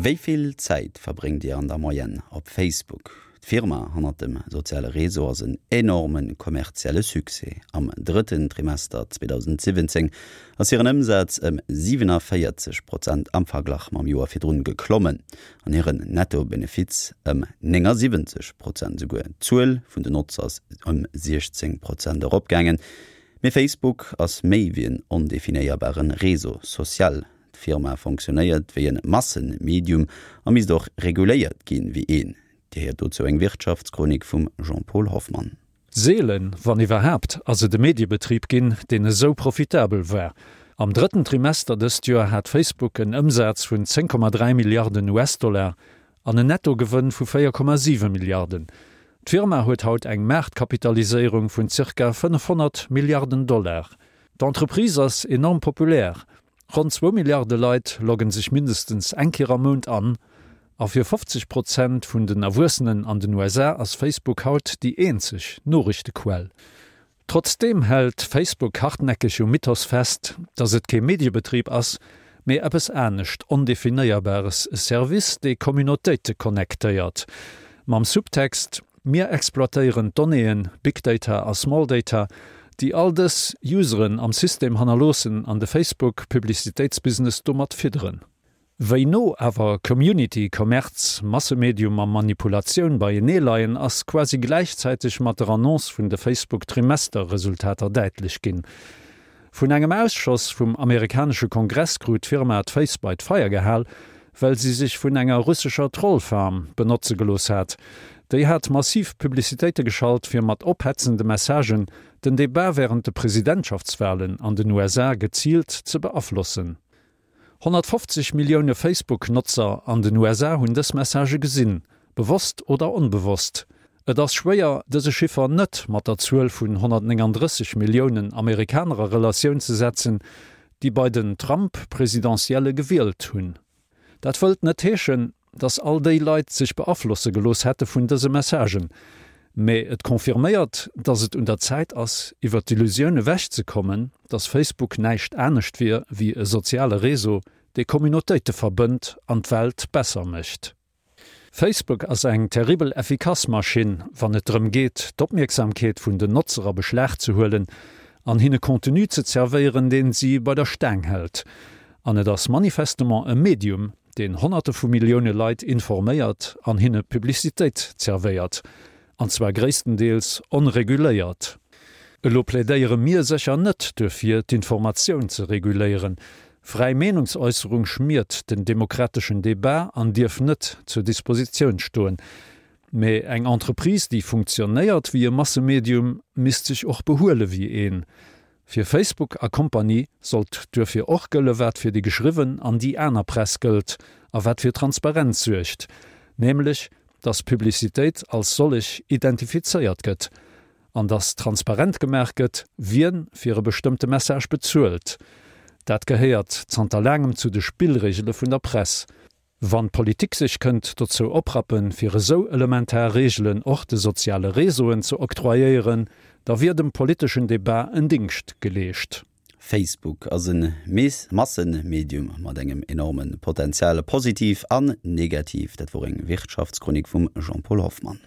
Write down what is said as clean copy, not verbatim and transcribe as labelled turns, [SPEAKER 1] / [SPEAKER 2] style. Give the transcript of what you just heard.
[SPEAKER 1] Wéi vill Zäit verbréngt Dir an der Moyenne op Facebook? D'Firma hannert dem soziale Réseau ass en enorme kommerzielle Succès. Am drëtten Trimester 2017 ass hiren Ëmsaz ëm 47 Prozent am Verglach mam Joer virdrun geklommen an hiren Netto-Benefiz ëm 79 Prozent esouguer. D'Zuel vun den Notzer ass ëm 16 Prozent eropgaangen. Mee Facebook ass méi wéi en ondefinéierbare Réseau social. D'Firma fonctionnéiert wéi en Massenmedium a misst och reguléiert ginn wéi een. Dir héiert dozou eng Wirtschaftschronik vum Jean-Paul Hoffmann.
[SPEAKER 2] Seelen, wann iwwerhaapt, ass et e Mediebetrib ginn, deen esou profitabel war. Am drëtten Trimester dëst Joer hat Facebook en Ëmsaz vun 10,3 Milliarden US-Dollar an en Nettogewënn vu 4,7 Milliarden. D'Firma huet haut eng Maartkapitaliséierung vun zirka 500 Milliarden Dollar. D'Entreprise ass enorm populär Ronn zwou Milliarde Leit loggen sech mindestens eng Kéier am Mount an, a fir 50 Prozent vun den Erwuessenen an den USA ass Facebook haut déi eenzeg Noriichtequell. Trotzdeem hält Facebook hartnäckeg um Mythos fest, datt et kee Mediebetrib ass, mee eppes anescht Ondefinéierbares, e Service, dee Communautéite connectéiert. Mam Subtext, Mir exploitéieren d'Donnéeën, Big Data a Small Data, déi all dës Useren am System hannerloossen an de Facebook-Publicitéitsbusiness domat fidderen. Wéi no awer Community, Kommerz, Massemedium a Manipulatioun beienee leien, ass quasi gläichzäiteg mat der Annonce vun de Facebook-Trimester-Resultater däitlech ginn. Vun engem Ausschoss vum amerikanesche Kongress krut d'Firma d'Féiss bei d'Feier gehal, well si sech vun enger russescher Trollfarm benotze gelooss hat. Déi hat massiv Publicitéite geschalt, fir mat ophetzende Messagen den Debat wärend de Presidentschaftswalen an den USA geziilt ze beaflossen. 150 Millioune Facebook-Notzer an den USA hunn dës Messagë gesinn, bewosst oder onbewosst. Et ass schwéier, dëse Chiffer net mat der Zuel vun 139 Milliounen Amerikaner a Relatioun ze setzen, déi bei den Trump-Presidentielle gewielt hunn. Dat wëllt net heeschen, dass all déi Leit sech beaflosse gelooss hätte vun dëse Messagen, mee et confirméiert, dass et un der Zäit ass, iwwer d'Illusioun ewech ze kommen, dass Facebook näischt anescht wier wéi e soziale Réseau, dee Communautéite verbënnt an d'Welt besser mécht. Facebook ass eng terribel effikass Maschinn, wann et drëm geet, d'Opmierksamkeet vun den Notzer a Beschlag ze huelen an hinne Contenu ze zerwéieren, deen si bei der Staang hält. An et ass manifestement e Medium, deen Honnerte vu Millioune Leit informéiert an hinne Publicitéit zerwéiert, an zwar gréisstendeels onreguléiert. Elo plädéiere mir sécher net duerfir, d'Informatioun ze reguléieren. Fräi Meenungsäusserung schmiert den demokrateschen Debat an dierf net zur Dispositioun stoen. Mä eng Entreprise, déi funktionéiert wéi e Massemedium, misst sech och behuele wéi een. Fir Facebook a Kompanie sollt duerfir och gëlle wat fir déi geschriwwen an déi aner Press gëllt a wat fir Transparenz suergt, nämlech datt Publicitéit als sollech identifizéiert gëtt an datt transparent gemaach gëtt, wien fir e bestëmmte Message bezuelt. Dat gehéiert zanter laangem zu de Spillregele vun der Press. Wann d'Politik sech kënnt dozou oprappen, fir esou elementar Reegelen och de soziale Réseauen ze octroyéieren, da wier dem politeschen Debat en Dingscht geleescht.
[SPEAKER 1] Facebook ass e Massemedium mat engem enorme Potential, positiv an negativ. Dat wor eng Wirtschaftschronik vum Jean-Paul Hoffmann.